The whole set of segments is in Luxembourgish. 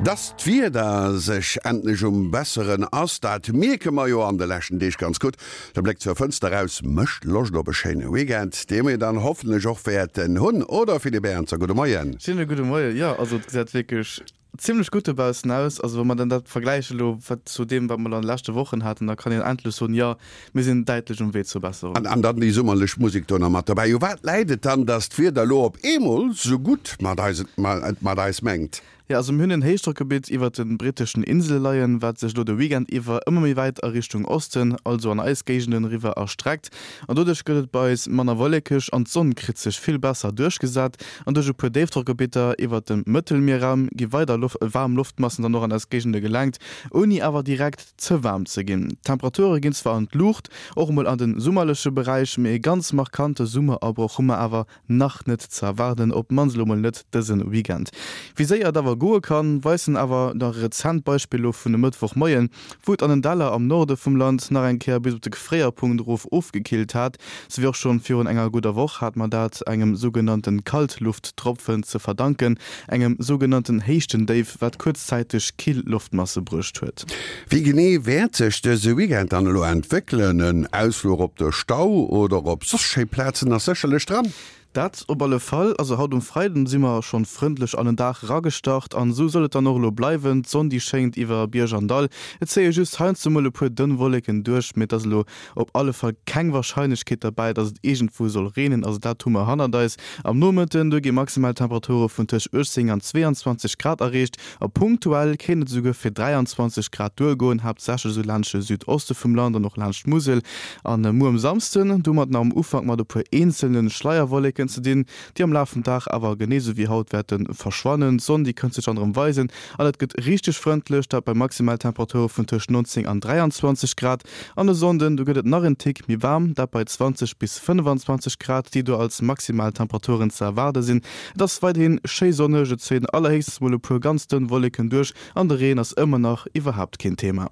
Dass d'Wieder sech endlech um besseren ass, dat mierke mer jo an de leschten Deeg ganz gutt. De Bléck zur Fënster eraus mécht Loscht op e schéine Weekend, dee mir dann hoffentlech och wäerten hunn, oder Philippe Ernzer? Gudde Moien. Schéine gudde Moien. Jo, also et gesäit wierklech zimlech gutt dobaussen aus. Also wa mer dann dat vergläiche lo wat zu deem, wat mer an de leschte Wochen haten, da kann een endlech soen, jo, Mir sinn däitlech um Wee zur Besserung. An dann déi summerlech Musek do nach mat dobäi. U wat läit et dann, dass d'Wieder elo op eemol sou gutt mat eis et mat eis mengt? Jo, also mir hunn en Héichdrockgebitt iwwert de britteschen Insele leien, wat sech elo de Weekend iwwer ëmmer méi wäit a Richtung Osten, also an eis Géigenden eriwwer erstreckt. An doduerch gëtt et bei eis manner wollekeg an d'Sonn kritt sech vill besser duerchgesat. An duerch e puer Déifdrockgebitter iwwert dem Mëttelmierraum gi weider waarm Loftmassen dann och an eis Géigende gelenkt, ouni awer direkt ze waarm ze ginn. D'Temperature ginn zwar an d'Luucht, och emol an de summerleche Beräich, mee e ganz markante Summerabroch hu mer awer nach net ze erwaarden, op d'mannst elo mol net dëse Weekend. Wéi séier et awer goe kann, weisen awer nach e rezent Beispill elo vun e Mëttwochmoien, wou et an den Däller am Norde vum Land nach eng Kéier bis op de Gefréierpunkt erof ofgekillt hat. Souwéi och schonn virun enger gudder Woch hat mer dat engem sougenannte Kaltlufttropfen ze verdanken, engem sougenannten Héichtendéif, wat kuerzzäiteg kill Loftmasse bruecht huet. Wéi genee wäert sech dëse Weekend dann elo entwéckelen? En Ausfluch op de Stau oder op soss schéi Plazen ass sécherlech dran. Dat op alle Fall. Also haut um Freiden si mer schonn frëndlech an den Dag eragestart an esou soll et dann och elo bleiwen. D'Sonn déi schéngt iwwer Bierg an Dall, et zéie just heiansdo mol e puer dënn Wolleken duerch, mee et ass elo Op alle Fall keng Warscheinlechkeet derbäi, dass et iergendwou soll reenen, also dat hu mer hannert eis. Am Nomëtten do gi maximal Temperature vun tëscht 18 an 22 Grad erreecht a punktuell kéint et esouguer fir 23 Grad duergoen, haaptsächlech esou laanscht de Südoste vum Land an och laanscht d'Musel. An muer um Samsden do hu mer et nach am Ufank mat e puer eenzelne Schleierwolleken ze dinn, déi am Laf vum Dag awer genee sou wéi haut wäerte verschwannen. D'Sonn déi kënnt sech dann erëm weisen an et gëtt richteg frëndlech, dat bei Maximaltemperature vun tëscht 19 an 23 Grad. An e Sonnden, do gëtt et nach en Tick méi waarm, dat bei 20 bis 25 Grad, déi do als maximal Temperaturen ze erwaarde sinn. Et ass weiderhi schéi sonneg, et zéien allerhéchstens mol e puer ganz dënn Wolleken duerch an de Reen ass ëmmer nach iwwerhaapt keen Thema.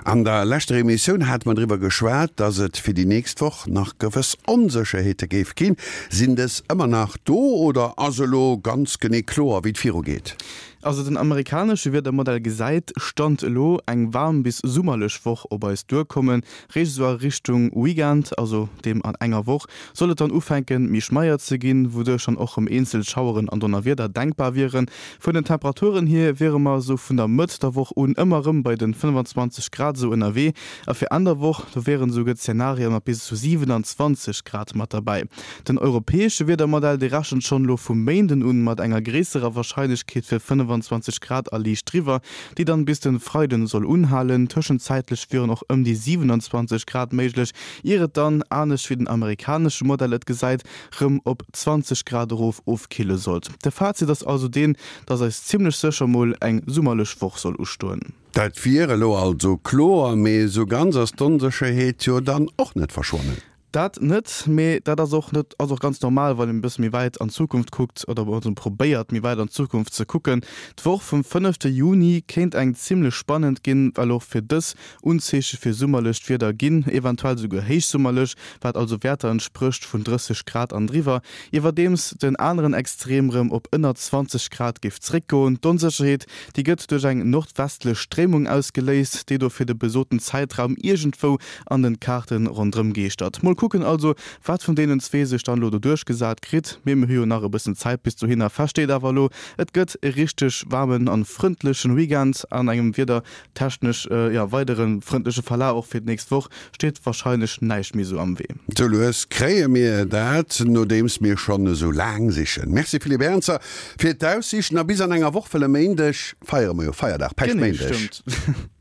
An der leschter Emissioun hate mer driwwer geschwat, dass et fir déi nächst Woch nach gewëss Onsécherheete géif ginn. Sinn dës ëmmer nach do oder ass elo ganz genee kloer, wéi et virugeet? Also den amerikanesche Wiedermodell gesäit, Stand elo, eng waarm bis summerlech Woch op eis duerkommen. Réischt esou a Richtung Weekend, also deem an enger Woch, soll et dann ufänken méi schmeier ze ginn, wouduerch dann och rem eenzel Schaueren an Donnerwieder denkbar wieren. Vun den Temperaturen hier wiere mer esou vun der Mëtt der Woch un ëmmer rem bei den 25 Grad esou ënnerwee a fir Enn der Woch, do wieren esouguer Zenarien mat bis zu 27 Grad mat derbäi. Den europäesche Wiedermodell, dee rechent schonn elo vum Méinden un mat enger gréisserer Warscheinlechkeet fir 25 Grad a liicht driwwer, déi dann bis den Freiden soll unhalen. Tëschenzäitlech wieren och ëm déi 27 Grad méiglech, ier et dann, anescht wéi den amerikanesche Modell et gesäit, rëm op 20 Grad erof ofkille sollt. De Fazit ass also deen, dass eis zimmlech sécher mol eng summerlech Woch soll ustoen. Dat wier elo also kloer, mee esou ganz ass d'Onsécherheet jo dann och net verschwonnen. Dat net, mee dat ass och net, ass och ganz normal, wann een e bësse méi wäit an d'Zukunft kuckt oder also probéiert, méi wäit an d'Zukunft ze kucken. D'Woch vum fënnefte Juni kéint eng zimmlech spannend ginn, well och fir dës Unzeeche fir summerlecht Wieder ginn, eventuell souguer héichsummerlech, wat also Wäerter entsprécht vun 30 Grad an driwwer, iwwerdeems den aneren Extrem rëm op ënner 20 Grad géif zréckgoen. D'Onsécherheet, déi gëtt duerch eng nordwestlech Stréimung ausgeléist, déi do fir de besoten Zäitraum iergendwou an den Kaarten rondrëm geeschtert. Mol kucken also wat vun deenen zwee sech dann elo do duerchgesat kritt, mee mir hu jo nach e bëssen Zäit bis dohinner. Fest steet awer elo, et gëtt e richteg waarmen an frëndlechen Weekend an engem wiedertechnesch jo weidere frëndleche Verlaf. Och fir d'nächst Woch steet warscheinlech näischt méi sou am Wee. Sou lues kréie mir dat, nodeems mir schonn esou laang sichen. Merci Philippe Ernzer fir d'Aussiichten a bis an enger Woch, wëll e Méindeg feiere mer jo Feierdag, Päischtméindeg. Genee, stëmmt.